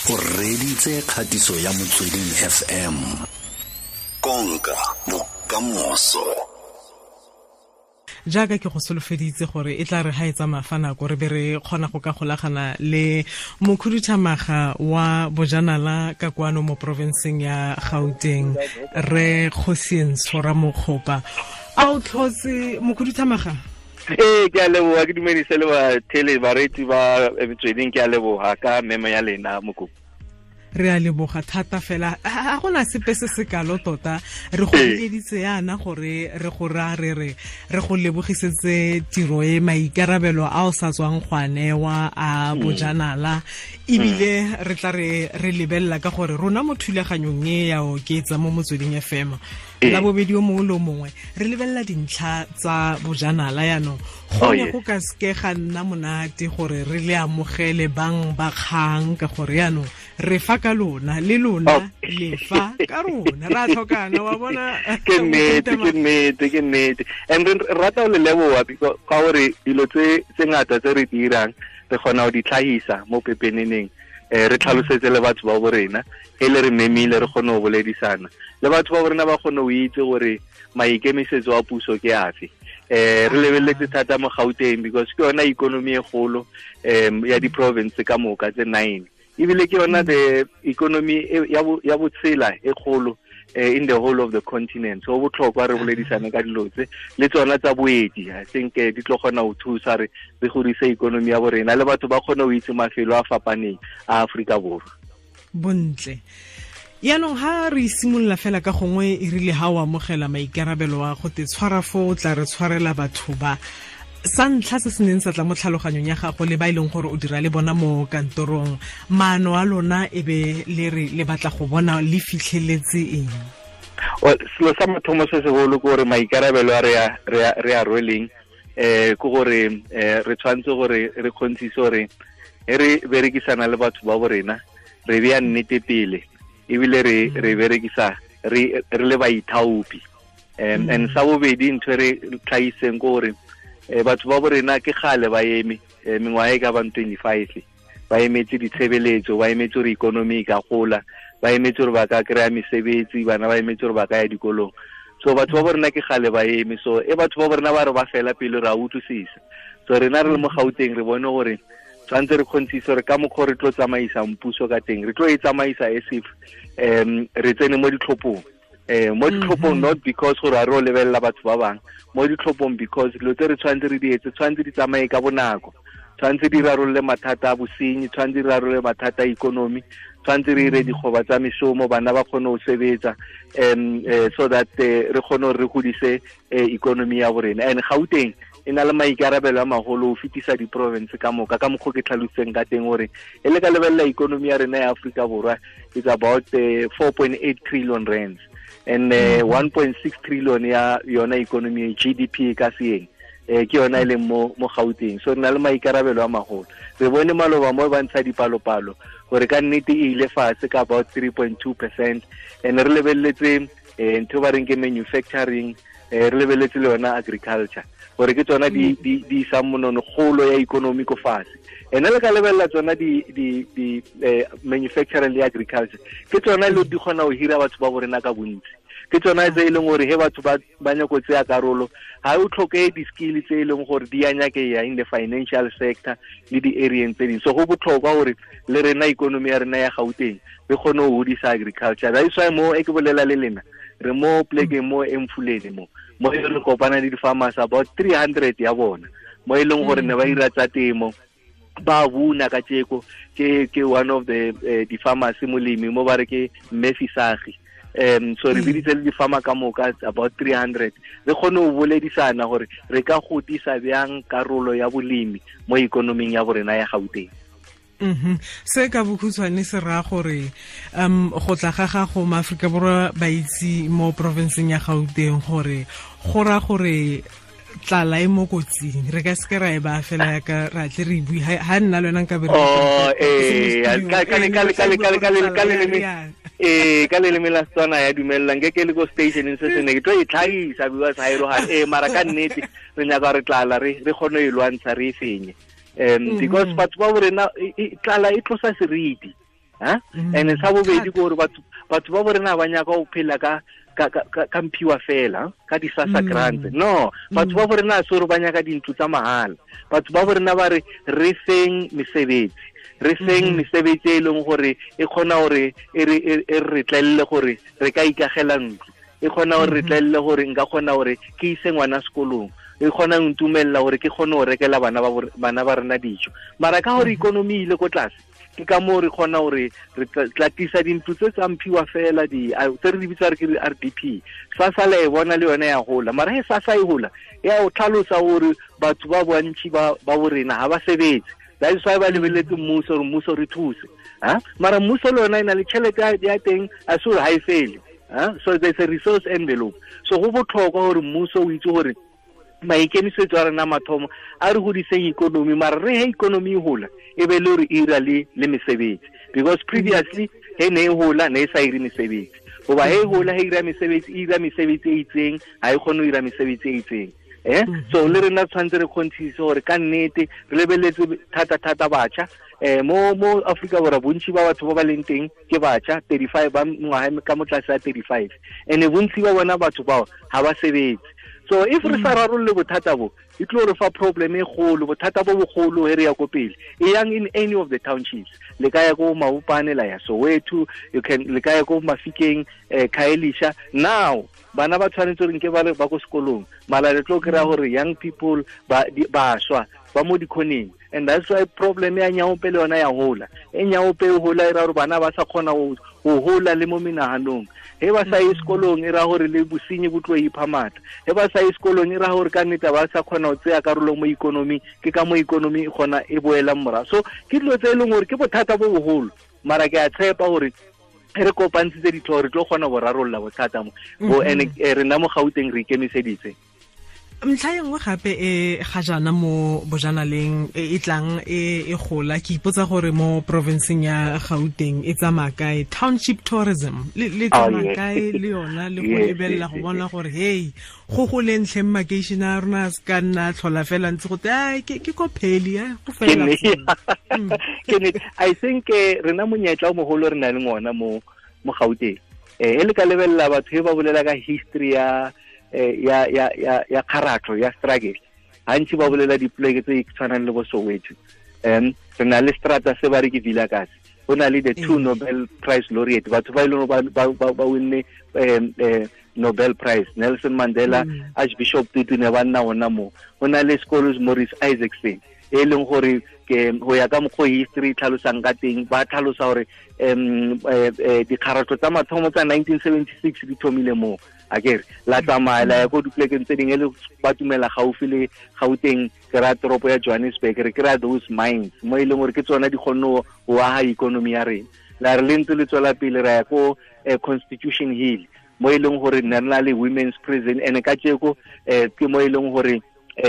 O reditse kgatiso ya Motsweding FM. Konka bokamoso. Jaaka ke go solofeditse gore e tla re ha e tsamaya fa nako re be re kgona go ka golagana le mokhuduthamaga wa bojanala ka kwano mo porofenseng ya Gauteng, re Kgosientsho Ramokgopa. A o tlhotse, mokhuduthamaga? Ee, ke a leboga, ke dumedise le bathele bareetsi ba Metsweding. Ke a leboga ka memo ya lena, mokopi. Re a leboga thata fela. A gona sepe se se kalo tota re go bileditse yana gore re go ra re re re go lebogisetse tiro e maikarabelo a o sa tswang go a newa a bojanala, ebile re tla re re lebelela ka gore rona mo thulaganyong e ya Oketsa mo Motsweding FM la bobedi o mongwe le o mongwe re lebelela dintlha tsa bojanala. Yaanong go ne go ka seke ga nna monate gore re le amogele bang ba kgang, ka gore yaanong re fa ka lona, le lona le fa ka rona, ra tlhokana, wa bona. Ke nnete, ke nnete, ke nnete. And re rata go le leboga ka gore dilo tse ngata tse re di dirang re kgona go di tlhahisa mo pepeneneng, re tlhalosetse le batho ba bo rena e le re memile, re kgone go boledisana le batho ba bo rena, ba kgone go itse gore maikemisetso a puso ke afe. Re lebeletse thata mo Gauteng because ke yona economy e golo ya di-province ka moka tse 9, ebile ke yona the economy ya botshela e kgolo in the whole of the continent. So botlhokwa re boledisane ka dilo tse le tsona tsa boeti. I think di tlo kgona go thusa re re godise economy ya borena le batho ba kgone go itse mafelo a fapaneng a Aforika Borwa. Bontle. Yaanong ha re simolola fela ka gongwe, e rile ha o amogela maikarabelo a go te tshwara fo o tla re tshwarela batho ba, sa ntlha se se neng sa tla mo tlhaloganyong ya gago le ba e leng gore o dira le bona mo kantorong, maano a lona e be le re le batla go bona le fitlheletse eng? Well, selo sa mathomo se segolo ke gore maikarabelo a re a rweleng ke gore re tshwanetse gore re kgontshise gore e re berekisana le batho ba bo rena re beya nnete pele, ebile re berekisa re le baithaopi. And sa bobedi, ntho e re tlhagiseng ke gore batho ba bo rena ke gale ba eme mengwaga e ka bang 25, ba emetse ditshebeletso, ba emetse gore economy e ka gola, ba emetse gore ba ka kry-a mesebetsi, bana ba emetse gore ba ka ya dikolong. So batho ba bo rena ke gale ba eme. So e batho ba bo rena ba re ba fela pele, re a utlwisisa. So rena re le mo Gauteng re bone gore tshwanetse re kgontshise gore ka mokgwa re tlo tsamaisang puso ka teng, re tlo e tsamaisa as if re tsene mo ditlhophong, mo ditlhophong, not because gore a re o lebelela batho ba bangwe mo ditlhophong, because dilo tse re tshwanetse re di etse tshwanetse di tsamaye ka bonako, tshwanetse di rarolle mathata a bosenyi, tshwanetse di rarolle mathata a economy, tshwanetse re ire dikgoba tsa mešomo, bana ba kgone go sebetsa, so that re kgone gore re godise economy ya borena. And Gauteng e na le maikarabelo a magolo go fetisa di-province ka moka, ka mokgwa ke tlhalositseng ka teng gore e le ka lebelela economy ya rena ya Aforika Borwa is about 4.8 trillion rands, and 1.6 trillion ya yona economy, GDP ka seeng, ke yona e leng mo Gauteng. So re na le maikarabelo a magolo. Re bone maloba mo ba ntsha dipalopalo gore ka nnete e ile fatshe ka about 3.2%, and re lebeletse ntho ba reng ke manufacturing, re lebeletse le yona agriculture, gore ke tsona di isang monono kgolo ya economy ko fatshe. Ene le ka lebelela tsona di manufacturing le agriculture, ke tsona le di kgona go hira batho ba borena ka bontsi, ke tsona tse e leng gore he batho ba nyako tseya karolo ga o tlhoke di-skill tse e leng gore di a nyakeya in the financial sector le di-areeng tse dingwe. So go botlhokwa gore le rena economy ya rena ya Gauteng re kgone go godisa agriculture. That is why mo e ke bolela le lena re mo plekeng mo Emfuleni, mo e re kopana le di-farmers about 300 ya bona, mo e leng gore ne ba ira tsa temo, ba buna ka tjeko. Ke one of the di-farmers, molemi mo ba re ke Mmefisagi. So re biditse le di-farmer ka moka about 300, re kgone go boledisana gore re ka godisa bjang karolo ya bolemi mo ikonoming ya borena ya Gauteng. Se ka bokhutshwane se raya gore go tla ga gago, maaforika Borwa ba itse mo porofenseng ya Gauteng gore go raya gore tlala e mo kotsing, re ka seke ra e ba fela yaka ra tle re bue ha nna le wena nka be. Oh, ka leleme la Setswana ya dumelelang ke le ko stationeng se sene ke tlo e tlhagisa because ha e roga mara ka nnete re nyaka re tlala re kgone e lwantsha, re e fenye, because batho ba borena tlala e tlosa seriti. Ha and sa bobedi ke gore batho ba bo rena ba nyaka go phela ka ka mphiwa fela ka di SASSA grants. No, batho ba bo rena se gore ba nyaka dintlo tsa mahala. Batho ba bo rena ba re re feng mesebetsi, re feng mesebetsi e leng gore e kgona gore e re tlelle gore re ka ikagela ntlo, e kgona gore re tlelle gore nka kgona gore ke ise ngwana sekolong, e kgona go ntumella gore ke kgone go rekela bana ba rena dijo. Mara ka gore ikonomi ile ko tlase, ke ka moo re kgona gore re tla tlisa dintlo tse tsa mphiwa fela di tse re di bitsa re ke RDP. SASSA le e bona le yone ya gola, mara he SASSA e gola ya o tlhalosa gore batho ba bontši ba bo rena ga ba sebetse. That is why ba lebeletse mmuso gore mmuso re thuse. Ha mara mmuso le yona e na le tšhelete ya teng, a se gore ha e fele. So there's a resource envelope. So go botlhokwa gore mmuso o itse gore maikemisetso a rena mathomo a re godiseng ikonomi, mara re he ikonomi e gola e be le gore e ira le mesebetsi, because previously he ne e gola ne e sa ire mesebetsi, goba he e gola he ira mesebetsi, e ira mesebetsi e itseng, ha e kgone go ira mesebetsi e itseng. So le rena tshwanetse re kgonthisise gore ka nnete re lebeletse thata-thata batjha. Mo Afrika Borwa bontši ba batho ba ba leng teng ke batjha 35 ba ngwaga ka mo tlase ya 35, and bontši ba bona batho bao ha ba sebetse. So if re sa rarolle bothata bo, e tlo re fa problem e kgolo, bothata bo bogolo he re ya ko pele. E yang in any of the townships, le ka ya ko Maupane, la ya Soweto, you can le ka ya ko Mafikeng, Khayelitsha. Now bana ba tshwanetse gore nke ba le ba ko sekolong, mala le tlo kry-a gore young people ba bašwa ba mo dikhoneng, and that's why problem ya nyaope le yona ya hola. E nyaope e hola e ra gore bana ba sa kgona go hola le mo menaganong. He ba sa ye sekolong e ra gore le bosenyi bo tlo ipha matla. He ba sa ye sekolong e ra gore ka nnete ba sa kgona go tseya karolo mo ikonomi, ke ka mo ikonomi e kgona e boelang morago. So ke dilo tse e leng gore ke bothata bo bogolo, mara ke a tshepa gore re kopantshitse ditlhogo re tlo kgona go rarolla bothata mo bo, and rena mo Gauteng re ikemiseditse. Ntlha e nngwe gape e ga jaana mo bojanaleng e tlang e gola, ke ipotsa gore mo provinceng ya Gauteng e tsamaya kae township tourism, le tsamaya kae le yona, le go lebelela go bona gore hey go goleng tlheng makeišene a rona a se ka nna tlhola fela ntse gote ai ke ko pheli go fela. I think rena monyetla o mogolo re na le ngona mo Gauteng. E le ka lebelela batho ba bolela ka history ya ya kgaratlo ya struggle, gantsi ba bolela dipoleke tse tshwanang le bo Soweto. Re na le strata se ba re ke Vilakazi, go na le the two Nobel Prize laureate, batho ba e leng ba winne Nobel Prize, Nelson Mandela, Archbishop Tutu ne ba nna ona mo. Go na le sekolo Morris Isaacson e leng gore ke go ya ka mokgwa history tlhalosang ka teng, ba tlhalosa gore dikgaratlo tsa mathomo tsa 1976 di thomile mo. Akere la tsamaya la ya ko dipolekeng tse dingwe le ba tumela gaufi le Gauteng, ke ra toropo ya Johannesburg, re kry-a those mines mo e leng gore ke tsona di kgonne go aga ikonomi ya rena. La re le ntse le tswela pele ra ya ko Constitution Hill mo e leng gore nna re na le women's prison, and ka tjeko ke mo e leng gore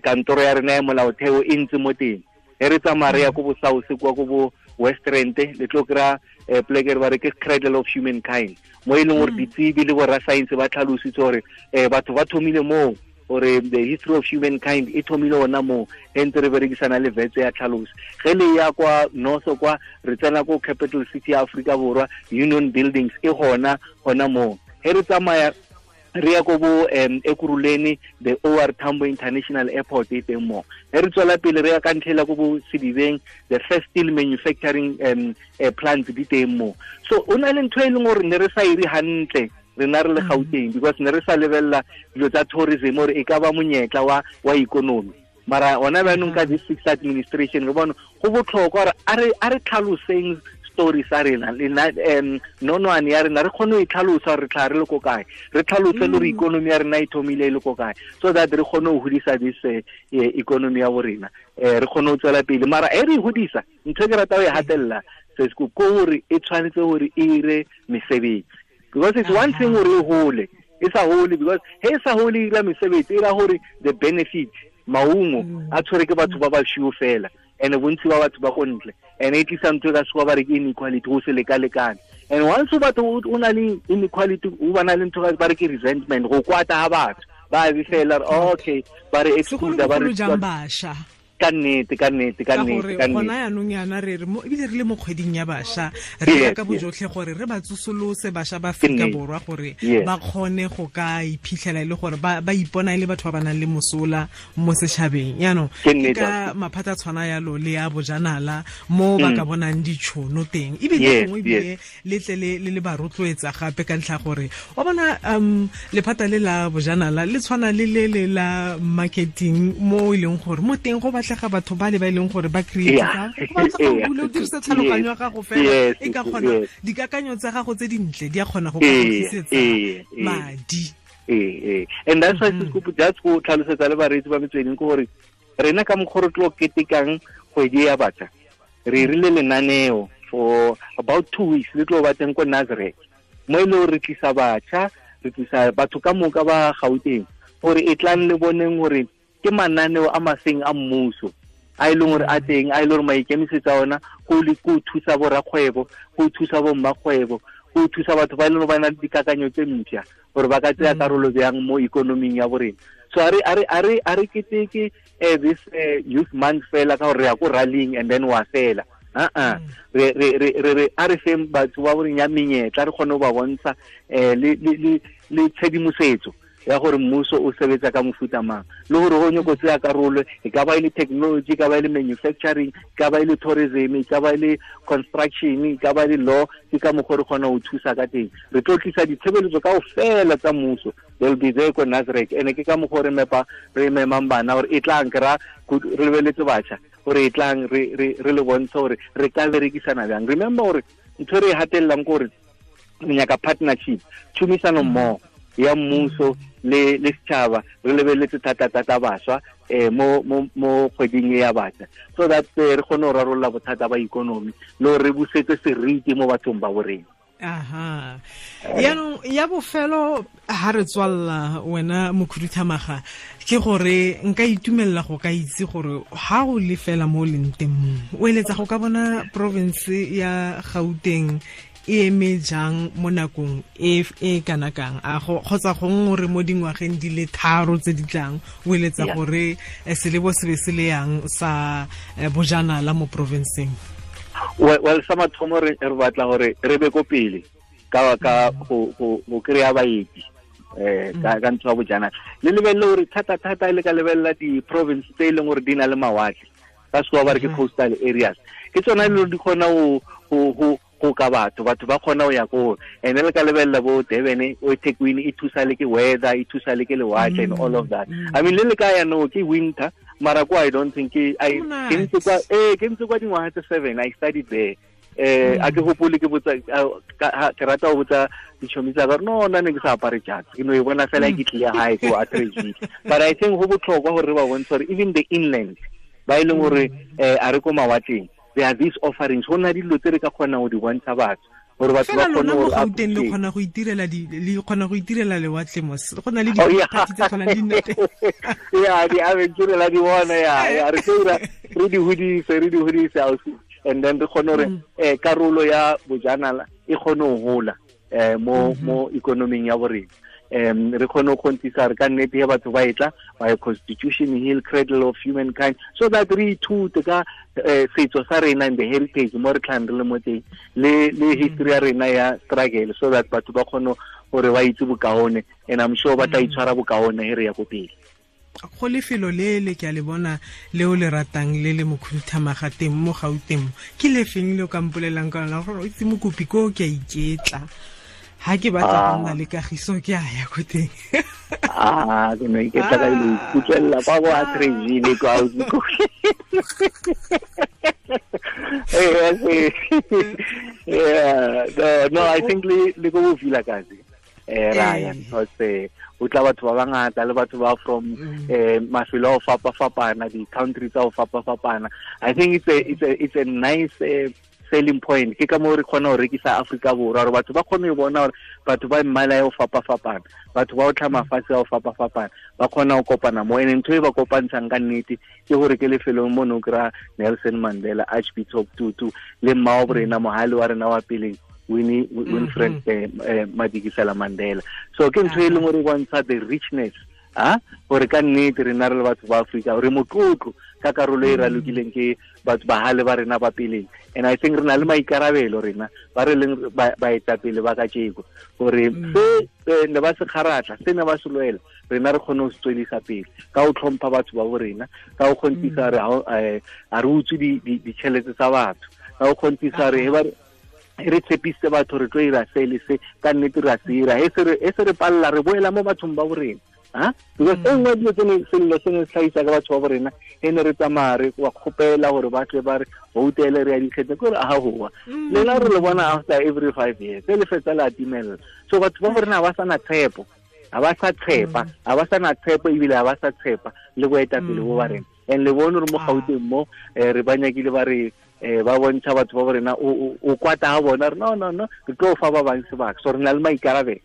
kantoro ya rena ya molaotheo e ntse mo teng. He re tsamaya re ya ko bo South kwa ko bo West Rand, le tlo kry-a poleke ba re ke cradle of humankind, mo e leng gore ditsebi le borra science ba tlhalositse gore batho ba thomile moo, gore the history of humankind e thomile ona moo, e ntse re berekisana le vetse ya tlhaloso. Ge le ya kwa north kwa re tsena ko capital city ya Afrika Borwa, Union Buildings e gona gona moo. He re tsamaya re ya ko bo Ekurhuleni, the OR Tambo International Airport e teng mo. He re tswela pele re ya ka ntlhela ko bo Sedibeng, the first steel manufacturing plant di teng mo. So o na le ntho e leng gore ne re sa ire hantle rena re le Gauteng, because ne re sa lebella dilo tsa tourism gore e ka ba monyetla wa ikonomi. Mara ona jaanong ka this sixth administration re bona go botlhokwa gore a re tlhaloseng story sa rena le nonwane ya rena, re kgone go e tlhalosa re tla re le ko kae, re tlhalose le gore ikonomi ya rena e thomile e le ko kae, so that re kgone go godisa this economy ya bo rena, re kgone go tswela pele. Mara e re e godisa, ntho e ke rata go e gatelela sesco ko gore e tshwanetse gore e ire mesebetsi, because it's one thing gore e hole, e sa hole, because he e sa hole e ira mesebetsi, e ra gore the benefit maungo a tshwere ke batho ba ba sio fela, and bontsi ba batho ba go ntle, and e tlisa ntho e ka sekgowa ba re ke inequality, go se leka-lekane. And once o batho o na le inequality, o ba na le ntho ba re ke resentment, go kwata ga batho ba be fela okay, ba re exclude, ba re jang bašwa. Ka nnete, ka nnete, ka nnete, ka nnete. Gona yanong yana re re ebile re le mo kgweding ya bašwa, re ka bojotlhe gore re ba tsosolose bašwa ba Afrika Borwa gore ba kgone go ka iphitlhela e le gore ba ipona e le batho ba ba nang le mosola mo setšhabeng. Yaanong ke ka maphata tshwana yalo le ya bojanala mo ba ka bonang ditšhono teng, ebile gongwe ebile le tle le ba rotloetsa gape ka ntlha gore wa bona lephata le la bojanala le tshwana le le le la marketing mo e leng gore mo teng go batlega batho ba le ba e leng gore ba create go batla go bula o dirisa tlhaloganyo ya gago fela e ka kgona dikakanyo tsa gago tse dintle di a kgona go ka tlisetsa madi. And that's why Sesikopo just go tlhalosetsa le bareetsi ba Metsweding ke gore rena ka mokgwa re tlo ketekang kgwedi ya batjha, re rile lenaneo for about 2 weeks le tlo ba teng ko Nazareth, mo e le gore re tlisa batjha, re tlisa batho ka moka ba Gauteng gore e tlang le boneng gore ke mananeo a maseng a mmuso a e leng gore a teng, a e leng gore maikemisetso a ona go thusa borakgwebo, go thusa bommakgwebo, go thusa batho ba e leng gore ba na le dikakanyo tse mpšha gore ba ka tsaya karolo bjang mo ikonoming ya borena. So a re keteke this youth month fela ka gore re ya ko rallying and then wa fela. Re a re feng batho ba boreng ya menyetla, re kgone go ba bontsha le tshedimosetso ya gore mmuso o sebetsa ka mofuta mang, le gore go nyako tseya karolo, e ka ba e le technology, e ka ba e le manufacturing, e ka ba e le tourism, e ka ba e le construction, e ka ba e le law, ke ka mokgwa re kgona go thusa ka teng. Re tlo tlisa ditshebeletso kaofela tsa mmuso, they'll be there ko Nasrec. Ene ke ka mokgwa re memang bana gore e tlang ke ra re lebeletse batjha gore e tlang re le bontshe gore re ka berekisana bjang. Remember gore ntho e re e hatellang ke gore re nyaka partnership, tšhomisano mmogo ya mmuso le setšhaba, re lebeletse thata-thata bašwa mo kgweding e ya batjha, so that re kgone go rarolola bothata ba ikonomi le gore re busetse seriti mo bathong ba borena. Aha. Yaanong ya bofelo ha re tswalla wena mokhuduthamaga, ke gore nka itumelela go ka itse gore ha o le fela mo leng teng mo, o eletsa go ka bona province ya Gauteng e eme jang mo nakong e kana kang, a kgotsa gongwe re mo dingwageng di le 3 tse di tlang, o eletsa gore selebo se be se le yang sa bojanala mo provinceng? Well, sa mathomo re batla gore re be ko pele ka go kry-a baeti ka ntho ya bojanala. Le lebelele gore thata-thata le ka lebelela di-province tse e leng gore di na le mawatle, ka sekgowa ba re ke coastal areas, ke tsona e le gore di kgona go ka batho ba kgona go ya ko. And le ka lebelela bo Durban, o eThekwini, e thusa le ke weather, e thusa le ke lewatle and all of that. I mean, le le ka ya no ke winter, mara ko I don't think ke ntse kwa dingwaga tse 7, I studied there. A ke gopole ke botsa, ke rata go botsa ditšhomi tsa ka gore no, nna ne ke sa apare jatse, ke no e bona fela ke tlile gae ko Atteridgeville. But I think go botlhokwa gore re ba bontshe gore even the inland ba e leng gore a re ko mawatleng, there are these offerings, go na dilo tse re ka kgonang go di bontsha batho gore batho ba kgone go Gauteng le kgona go itirela le kgona go itirela lewatle mos, go na le diphathi tse tshwanang di nna teng. Yeah, di adventure la di bona, ya re tsira re di hodise ausi, and then re kgone gore karolo ya bojanala e kgone go hola mo economing ya borena. Re kgone go kgontisa re ka nnete ya batho ba etla ba Constitution Hill, Cradle of Humankind, so that re ithute ka setso sa rena and the heritage mo re tlhang re le mo teng, le history ya rena ya struggle, so that batho ba kgone gore ba itse bokaone, and I'm sure ba tla itshwara bokaone he re ya ko pele. Go lefelo le le ke a le bona le o le ratang le le mokhuduthamaga teng mo Gauteng, ke lefeng le o ka mpolelang ka lona gore o itse mokopi ko ke a iketla, ha ke batla go nna le kagiso ke a ya ko teng? Ke no iketla ka ile ikutlwella kwa bo Atteridgeville kwa ausi ko. Yeah, no, I think le go Vilakazi Ryan, because o tla batho ba bangata le batho ba from mafelo a fapa-fapana, di-country tsa go fapa-fapana. I think it's a nice selling point. Ke ka moo re kgona go rekisa Afrika Borwa, gore batho ba kgone go bona gore batho ba mmala ya go fapa-fapana, batho ba o tlha mafatshe a go fapa-fapana, ba kgona go kopana mo. And ntho e ba kopantshang ka nnete ke gore ke lefelong mo ne o kry-a Nelson Mandela, Archbishop Tutu le mmao borena mohale wa rena wa peleng Winfred Madikizela Mandela. So ke ntho e leng gore e bontsha the richness, gore ka nnete rena re le batho ba Afrika re motlotlo Ka karolo e ralokileng ke batho bahale ba rena ba peleng. And I think re na le maikarabelo rena ba re leng baetapele ba kajeko gore se ne ba se kgaratla, se ne ba se lwela, rena re kgone go se tswelisa pele ka go tlhompha batho ba bo rena, ka go kgontisa re a re utswe ditšhelete tsa batho, ka go kgontisa re re tshepise batho re tlo ira se le se, ka nnete re a se ira. E se re palela re boela mo bathong ba bo rena. Because e nngwe dilo tse sello se ne se tlhagisa ka batho ba bo rena, e ne re tsamaya re wa kgopela gore ba tle ba re voutele re ya dikgetho, ke gore a hoa lena re le bona after every 5 years se le fetsa le atimella. So batho ba bo rena ba sa na tshepo, ha ba sa tshepa, ha ba sa na tshepo ebile ha ba sa tshepa le boetapele bo ba rena. And le bone re mo Gauteng mo re ba nyakile ba re ba bontsha batho ba bo rena o kwata ha bona re no no no re tlo fa ba bang sebaka. So re na le maikarabelo,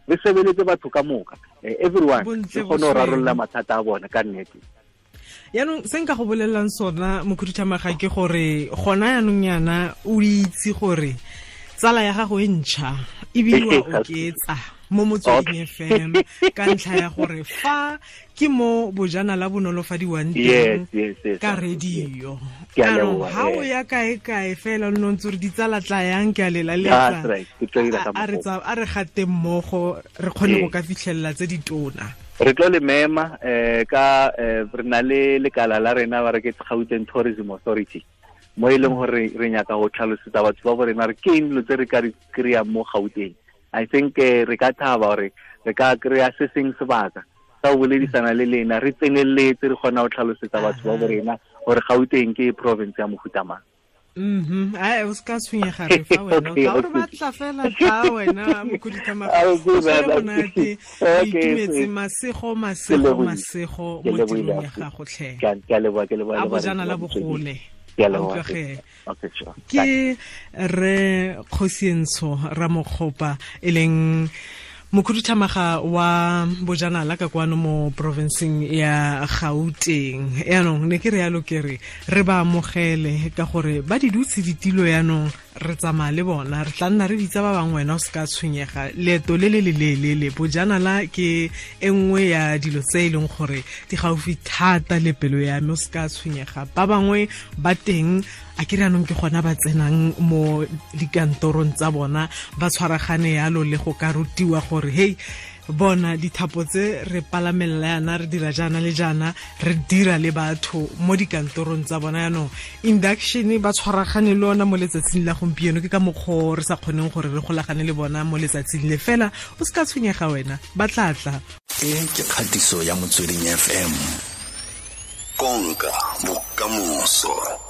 re sebeletse batho ka moka, everyone re kgone go rarolla mathata a bona ka nnete. Yaanong se nka go bolelelang sona mokhuduthamaga ke gore gona yaanong yana o itse gore tsala ya gago e ntšha ebile wa oketsa mo Motsweding FM ka ntlha ya gore fa ke mo bojanala bo nolofadiwang teng ka radio. Ha o ya kae-kae fela o nne o ntse o re ditsala tla yang ke a lelaletsa, a re gate mmogo re kgone go ka fitlhelela tse ditona. Re tlo le mema ka re na le lekala la rena ba re ke Gauteng Tourism Authority, mo e leng gore re nyaka go tlhalosetsa batho ba bo rena re ke eng dilo tse re ka di kry-ang mo Gauteng. I think re ka thaba gore re ka kry-a se seng sebaka sa go boledisana le lena, re tseneletse re kgona go tlhalosetsa batho ba bo rena gore Gauteng ke province ya mofuta mang. Ai o ska tshwenyega re fa wena ka gore batla fela tla wena mokhuduthamaga o tshwere monate, o itumetse. Masego masego masego mo tirong ya gago tlhe. Ke a leboha, ke leboha. A bojanala bogole. Ke re Kgosientsho Ramokgopa e leng mokhuduthamaga wa bojanala ka kwano mo provinceng ya Gauteng. Yaanong ne ke re yalo ke re re ba amogele ka gore ba di dutse ditilo, yaanong re tsamaya le bona, re tla nna re bitsa ba bangwe, wena o se ka tshwenyega. Leeto le le leleele, bojanala ke e nngwe ya dilo tse e leng gore di gaufi thata le pelo ya me, o se ka tshwenyega. Ba bangwe ba teng a ke re anong ke gona ba tsenang mo dikantorong tsa bona ba tshwaragane yalo le go ka rutiwa gore hey bona dithapo tse re palamelela yana, re dira jaana le jaana, re dira le batho mo dikantorong tsa bona. Yaanong induction ba tshwaragane le ona mo letsatsing la gompieno, ke ka mokgwa re sa kgoneng gore re golagane le bona mo letsatsing le fela. O se ka tshwenyega wena, ba tla tla. E ke kgatiso ya Motsweding FM, konka bokamoso.